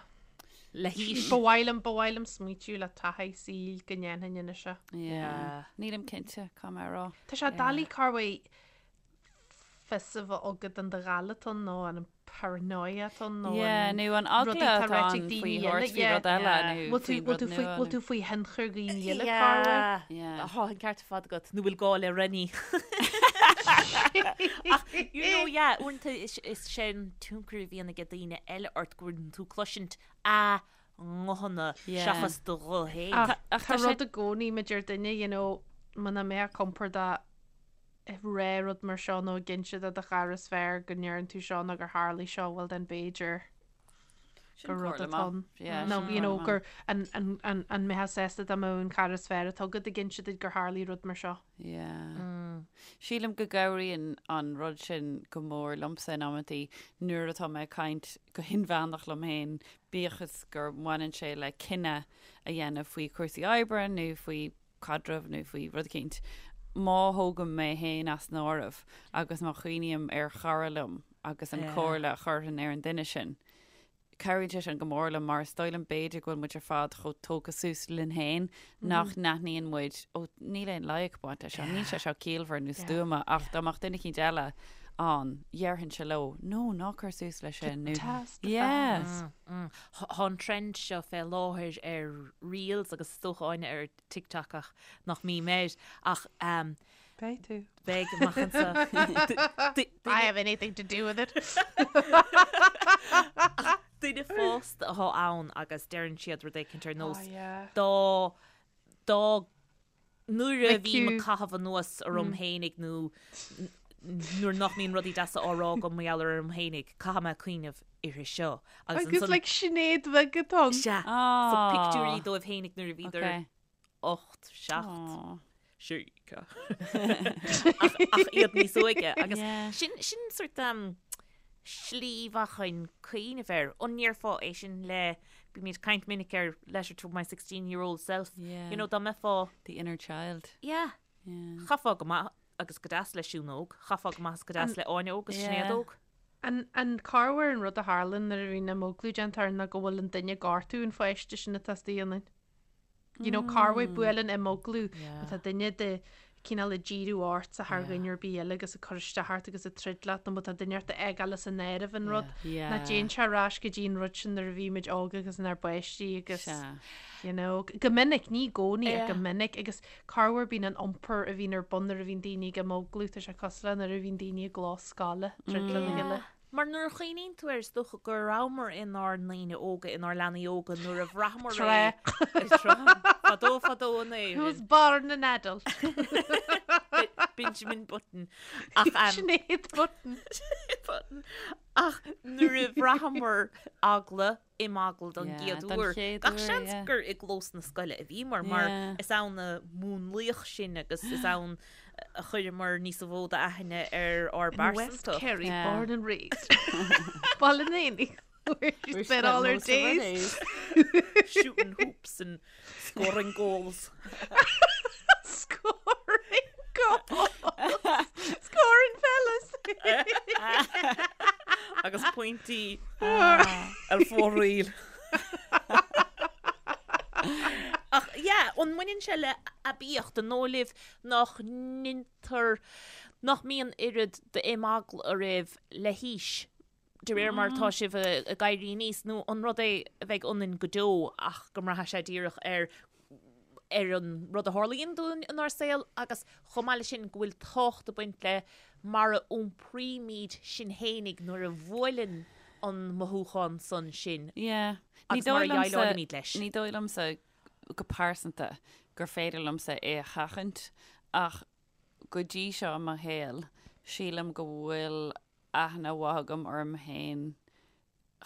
Le haois. Ba mhaith liom, ba mhaith liom smaoitiú le taithí saoil go ndéanfainn anois é. Yeah. Nílim cinnte, caithfidh mé a rá. Tá sé doiligh corruair fios a bheith agat an do ghaile atá ann nó an paranoia atá ann nó Yeah, an nó an eagla rudaí atá atá ráite ag ann daoine faoi eile, thabhairt faoi yeah. rud eile Yeah. nó Bhfuil tú, faoi bhfuil rud tú faoi, nua bhfuil nó tú faoi thionchar dhaoine eile corruair? Yeah. Tá an ceart ar fad agat, nó bhfuil gá le Rennie. Ach, you know, yeah, uaireanta is, is sé an tionchar a bhíonn ag daoine eile ort go bhfuil tú cloisint a nguthanna Yeah. seachas do ghuth féin. Ach Ach tá tá sé rud i gcónaí maidir duine, you know, muna mbeadh compordach ag rá rud mar seo nó ag inse do do chara is fearr go ndeireann tú seo nó gur tharlaigh seo, well then b'fhéidir gur rud atá ann. Nó you know gur an an an mbeifeá sásta dá mbeadh an cara is fearr atá agat ag inse duit gur tharlaigh rud mar seo. Yeah. Sílim go gcabhraíonn an rud sin go mór liomsa in amantaí nuair atá mé ag caint go hinmheánach liom féin, bíodh is gur mbaineann sé le cinneadh a dhéanamh faoi chúrsaí oibre nó faoi caidreamh nó faoi rud eicínt, má thógaim mé féin as an áireamh agus má chuimhním ar chara liom agus an chomhairle a chuirfinn ar an duine sin, cabhraíonn sé sin go mór liom mar is dóigh liom b'fhéidir go bhfuil muid ar fad chomh tógtha suas linn féin nach n-aithníonn muid, ó níl aon loighic ag baint leis seo, níl sé seo ciallmhar nó stuama ach dá mbeadh duine eicínt eile ann, dhéarfainnse leo, no, ná cuir suas leis sin nó yeah. Tá an trend seo fé láthair ar Reels agus is dócha Áine ar TikTok ach nach mbím air ach ehm. Beidh tú. Beidh amach anseo. I have anything to do with it. Ach duine fásta atá ann agus deireann siad rud éicint ar nós Oh yeah. dá dá nuair a bhím ag Mic caitheamh anuas orm fhéinig nó nuair nach mbíonn rudaí deasa á rá agam mar gheall orm fhéinig, caithfidh mé cuimhneamh uirthi seo. Agus like Sinéad bheag atá ann. Sea. So pictiúirí dóibh fhéinig nuair a bhíodar Okay. 8, 7, 6, ach iad níos óige agus sin sin sort um, slí mhaith chun cuimhneamh air. An ndéarfá é sin le bímid ag caint minic ar letter to my 16 year old self. You know, dá mbeifeá The inner child. Yeah. Yeah. Chaithfeá go maith agus go deas le Siún óg, chaithfeá go maith agus go deas le Áine óg agus Sinéad óg. An an corruair an rud a tharlaíonn nuair a bhíonn imeaglú déanta orainn ná go bhfuil an duine ag gortú an pháiste sin atá istigh ionainn. You know, corruair buaileann imeaglú má tá duine de cineál ag díriú ortsa thar dhuine ar bith eile agus ag cur isteach ort agus ag troid leat nó má tá duine ort a fhágáil as an áireamh an rud ná téann sé ar ais go dtí an rud sin nuair a bhí muid óg agus inár bpáistí agus you know, go minic, ní i gcónaí ach go minic agus corruair bíonn an iompar a bhíonn ar bun nuair a bhíonn daoine ag imeaglú, tá sé cosúil le nuair a bhíonn daoine i gclós scoile, troid lena chéile. Mar nuair a chuimhníonn tú air, is dócha go rabhamar inár ndaoine óga, inár leanaí óga nuair a bhraitheamar é. Tráth. Fadó fadó in Éirinn. Who was born an adult. Benjamin Button. Ach, Sinéad Button. Sinéad Button. Ach nuair a bhraitheamar eagla, imeagla don gcéad uair. Gach seans gur i gclós na scoile a bhíomar, mar is ann a múnlaíodh sinn agus is ann a chuireamar níos mó d'aithne ar ár In West bpearsantacht. Kerry, born and raised. Baile an Éanaigh, where she spent all her days. Shooting hoops and scoring goals. Scoring goals! Scoring fellas! Agus pointí ar fóraoil. Ach yeah, an mbaineann sé le haibíocht an dóigh libh nach ndeintear, nach mbíonn oiread d'imeagla oraibh le haois de réir mar atá sibh ag éirí aníos, nó an rud é a bheidh ionainn go deo ach go mbraithfidh sé díreach ar ar an rud a tharlaíonn dúinn inár saol agus chomh maith leis sin go bhfuil tábhacht ag baint le mar a iompraímid sinn fhéinig nuair a bhuaileann an mothúchán san sinn Yeah. Ní agus mar dóigh a liomsa, dhéileálaimid leis. ní dóigh liomsa go pearsanta gur féidir liomsa é a sheachaint ach go dtí seo i mo shaol sílim go bhfuil aithne mhaith agam orm féin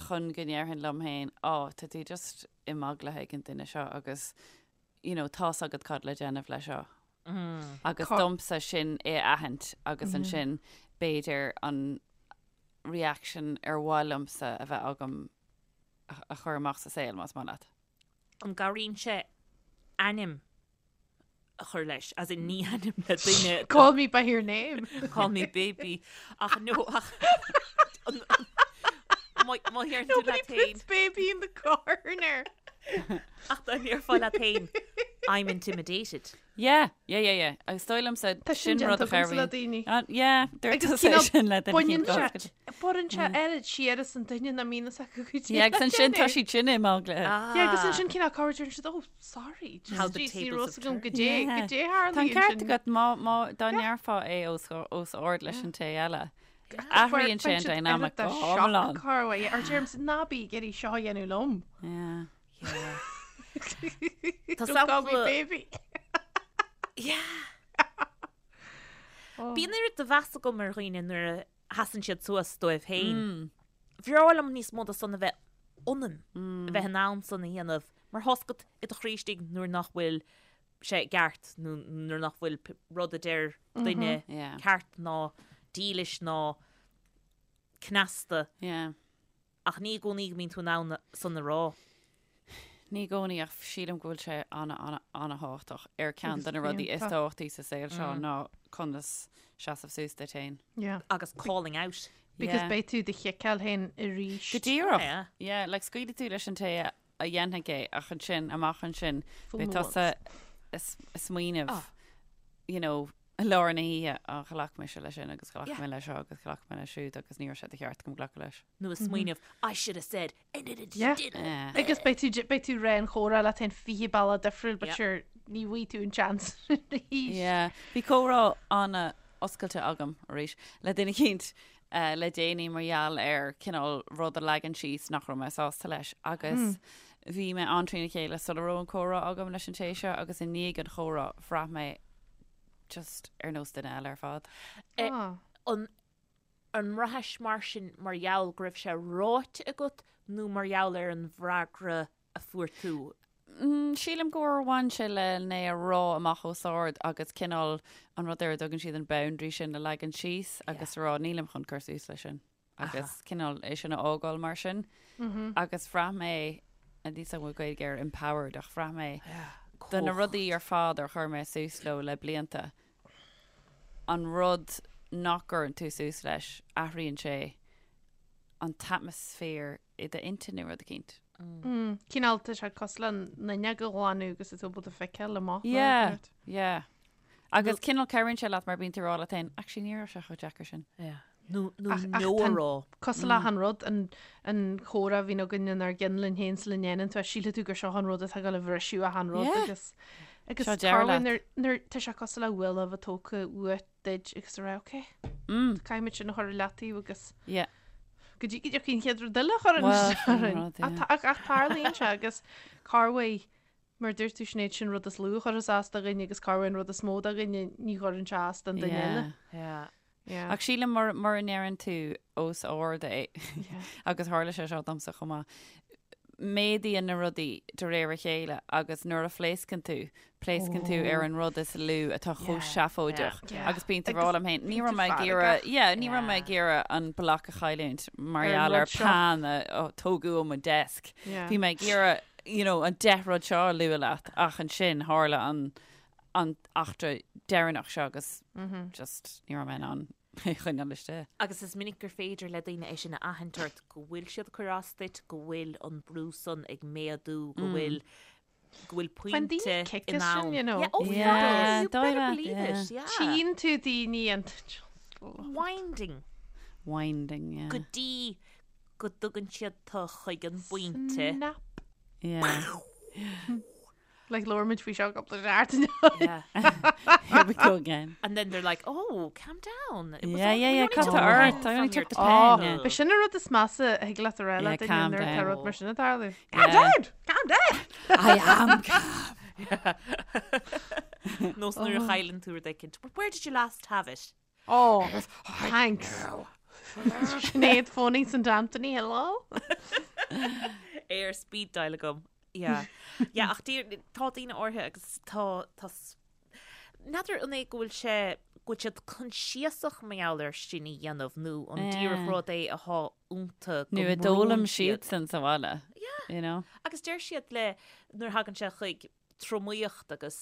chun go ndéarfainn liom féin, á, tá tú just imeaglaithe ag an duine seo agus you know, tá's agat cad le déanamh le seo. Agus domsa sin é a aithint agus ansin b'fhéidir an reaction ar mhaith liomsa a bheith agam a chur amach sa saol, más maith leat. An gcabhraíonn sé ainm a chur leis, as in ní ainm le duine. Call me by your name. Call me baby. Ach no, ach... Má deireann tú Nobody leat féin. puts baby in the corner. Ach dá ndéarfá leat féin, I'm intimidated. Yeah, yeah, yeah, yeah. Agus dóigh liomsa Tá sin sin rud déanta a agamsa le daoine. Ah, yeah, dúirt Agus tusa cineál sin le duine Baineann cinn sé, go. baineann sé oiread siar as an duine nach mbíonn fhios acu go dtí Yeah, agus ansin tá siad sin imeaglaithe. Yeah, agus ansin cineál corruair deireann siad, oh, sorry, just How the ní tables raibh have fhios agam turned. go dté, Yeah. go dté Tá an tharlaíonn ceart sin. agat má, má, dá ndéarfá é os, os ard leis an té eile. Athraíonn sé an dynamic go hiomlán. Corruair, ar deirimse ná bí ag iarraidh seo a dhéanamh liom. Yeah. Tá Don't call me sampla- baby. Yeah. Bíonn oiread de mheas agam ar dhaoine nuair a sheasann siad suas dóibh féin. Bhreá liom níos mó de san a bheith ionam, a bheith in ann san a dhéanamh, mar tá's agat i do chroí istigh nuair nach bhfuil sé ceart nó nuair nach bhfuil rud a deir duine Yeah. ceart ná dílis ná cneasta. Yeah. Ach ní i gcónaí go mbíonn tú in ann san a rá. Ní i gcónaí ach sílim go bhfuil sé ana, ana, ana-thábhachtach. Ar ceann de na rudaí is tábhachtaí sa saol seo ná conas seasamh suas duit féin. Yeah. Agus calling out. Because Yeah. beidh tú do chiceáil féin arís. Go díreach. Yeah. Yeah, like scaoilfidh tú leis an té a a dhéanfaidh é ach ansin, amach ansin, Fool beidh me tusa ag smaoineamh, you know, i lár na hoíche, á, ghlac mise leis sin agus ghlac Yeah. mé leis seo agus ghlac mé leis siúd agus ní raibh sé de cheart agam glacadh leis. Nó ag smaoineamh, I should have said, and it Yeah. didn't. Yeah. Agus beidh tú, beidh tú ag rá an chomhrá leat féin 20 bealach difriúil, but Yeah. sure, ní bhfaighidh tú an chance arís. Yeah. Bhí comhrá an-oscailte agam arís le duine eicínt eh, le déanaí mar gheall ar cineál rud a leagan síos nach raibh mé sásta leis agus bhí mé an-trína chéile sula raibh an comhrá agam leis an té seo agus i ndiaidh an chomhrá bhraith mé just ar nós duine eile ar fad. Eh, Ah. An an mbraithis mar sin mar gheall go raibh sé ráite agat nó mar gheall ar an bhfreagra a fuair tú? Sílim gur bhain sé le é a rá amach os ard agus cineál an rud ar a dtugann siad an boundary sin a leagan síos agus a rá nílim chun cur suas leis sin agus cineál é sin a fhágáil mar sin. Agus bhraith mé, níl a fhios agam an bhfuil Gaeilge ar empowered ach bhraith mé do na rudaí ar fad ar chuir mé suas leo le blianta, an rud nach gcuireann tú suas leis, athraíonn sé an t-atmaisféar i d'intinn nó rud eicínt. Cineál tá sé cosúil le an fhuinneog a ghlanadh agus is tú ábalta feiceáil amach. Yeah, yeah. Agus cineál cabhraíonn sé leat mar bíonn tú ag rá leat féin, actually ní raibh sé chomh deacair sin. Yeah. Nó nó no a rá. Cosúil le an rud an an chomhrá a bhíonn againn inár gcinn linn féin sula ndéanann tú é, sílfidh tú gur seo an rud atá ag dul a bhriseadh achan rud agus agus Seo deireadh corruair leat. nuair nuair tá sé cosúil le buille a bheith tógtha uait duit agus a rá ok, caithfidh muid sin a chur i leataobh agus Yeah. go dtí go dtiocfaidh an chéad rud eile a chuireann Well, isteach sin orainn. rud, yeah. Ach tá- ach tarlaíonn sé agus corruair mar a dúirt tú Sinéad sin rud is lú a chuirfeas as do dhuine agus corruair an rud is mó do dhuine ní chuireann sé as don duine Yeah. eile. Yeah. Yeah. Ach sílim mura mura ndeireann tú os ard é agus tharla sé seo domsa chomh maith, méadaíonn na rudaí de réir a chéile agus nuair a phléascann tú, pléascann tú ar an rud is lú atá chomh seafóideach agus bíonn tú ag rá liom féin, ní raibh mé ag iarraidh, yeah, ní raibh mé ag iarraidh an bloc a chailliúint mar gheall ar peann a tógadh ó mo desk. Bhí mé ag iarraidh, you know, an 10 rud seo a lua leat ach ansin tharla an an eachtra deireanach seo agus just ní raibh mé in ann é a choinneáil istigh. Agus is minic gur féidir le daoine é sin a aithint ort, go bhfuil siad ag cur as duit, go bhfuil an brú san ag méadú, go bhfuil go bhfuil Faigheann pointe daoine kick in as sin, am. you know. Yeah, oh, Yeah, you dóigh better leat, believe yeah. it, yeah. Tchíonn tú daoine an Winding Winding, yeah. go dtí go dtugann siad tu chuig an bpointe. Snap. Yeah. Like labhair muid faoi seo cúpla seachtain ó shin. Yeah. Here we go again. And then they're like, oh, calm down. It was Yeah, only- yeah, we yeah, only cad took tá the ort? pen I only from your took the pen, yeah. Ba sin an rud is measa a thig leat a rá Yeah, le duine calm nuair atá down. rud mar sin ag tarlú. Yeah. Calm down! Calm down! I am calm. Nós nuair a chailleann tú rud éicint. But where did you last have it? Oh, thanks. Sinéad phoning St Anthony, hello? Ar speed dial agam. Yeah. Yeah, ach dear, tá daoine áirithe agus tá, tá, n'fheadar an é go bhfuil sé, go bhfuil siad coinsiasach mar gheall air sin a dhéanamh nó an díreach rud é atá iontu go Nó a mbrúnn d'fhoghlaim siad. siadsan sa bhaile. Yeah. You know? Agus deir siad le, nuair a thagann sé chuig tromaíocht agus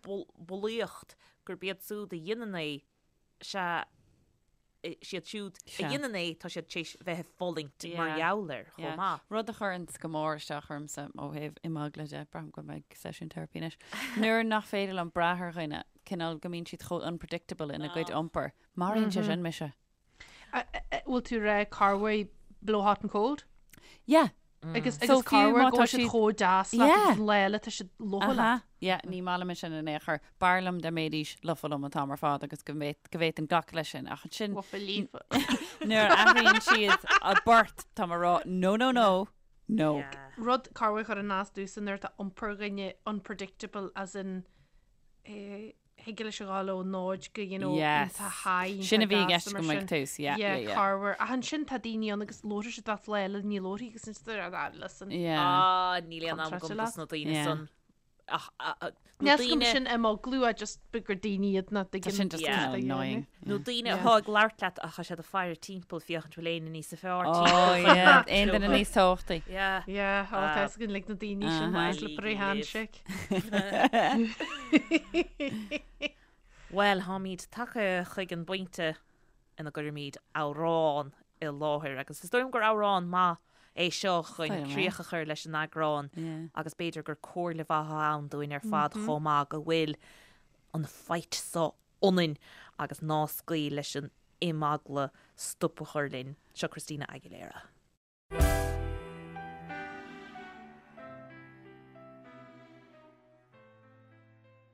bulaíocht gurb iad siúd a dhéanann é, sea, siad siúd a dhéanann é, tá siad tar éis bheith ag fulaingt mar gheall air chomh maith. Rud a chuireann go mór isteach ormsa ó thaobh imeagla de, braithim go mbeidh seisiún teiripí anois, nuair nach féidir liom brath ar dhuine, cineál go mbíonn siad chomh unpredictable ina gcuid iompair. Maraíonn sé sin mise. Bhfuil tú ag rá corruair blow hot and cold? Yeah. Agus So agus fiú corruair má go tá bhfuil siad siad- chomh deas leat Yeah. agus an lá eile tá siad lofa leat. Aha. Yeah, ní maith liom sin in aon chor. B'fhearr liom dá mbeidís lofa liom an t-am ar fad agus go bhféad- go bhféadfainn glacadh leis sin. Ach ansin Lofa líofa. nuair a athraíonn siad a bport, tá mé ag rá no, no, no, no. Yeah. Rud corruair a chuireann as domhsa nuair atá iompar dhuine unpredictable as in eh, thig leis a ghabháil ó 0 go you know Yes. iontach high, Sin a iontach bhí i gasta gceist mar agam ag sin. tús, yeah, Yeah, yeah, yeah. corruair. Ach ansin tá daoine ann agus labharfaidh siad leat lá eile ní labharfaidh agus ansin tá ah, listen. Yeah. Ah, níl aon am Contráilte agam leat. dos na daoine Yeah. san. Ach, ah, ah, nó Níl 's agam daoine- sin imeaglú a just b- gur daoine iad nach Tá dtuigeann sin just Yeah. kind of annoying. Nó daoine Yeah. atá ag labhairt leat ach tá siad ag faire timpeall féachaint bhfuil éinne níos fearr Oh timpeall. yeah, aon duine níos tábhachtaí. Yeah. Yeah, ó Ah. tá 's againn like na daoine sin Uh-huh. slippery Leave. handshake. Bhuel, táimid tagtha chuig an bpointe ina gcuirimid amhrán i láthair agus is dóigh liom gur amhrán maith é seo chun Dóigh liom é. críoch a chur leis an eagrán Yeah. agus b'fhéidir gur comhairle mhaith atá ann dúinn ar fad chomh maith go bhfuil an fight so ionainn agus ná scaoil leis an imeagla stop a chur linn. Seo Christina Aguilera.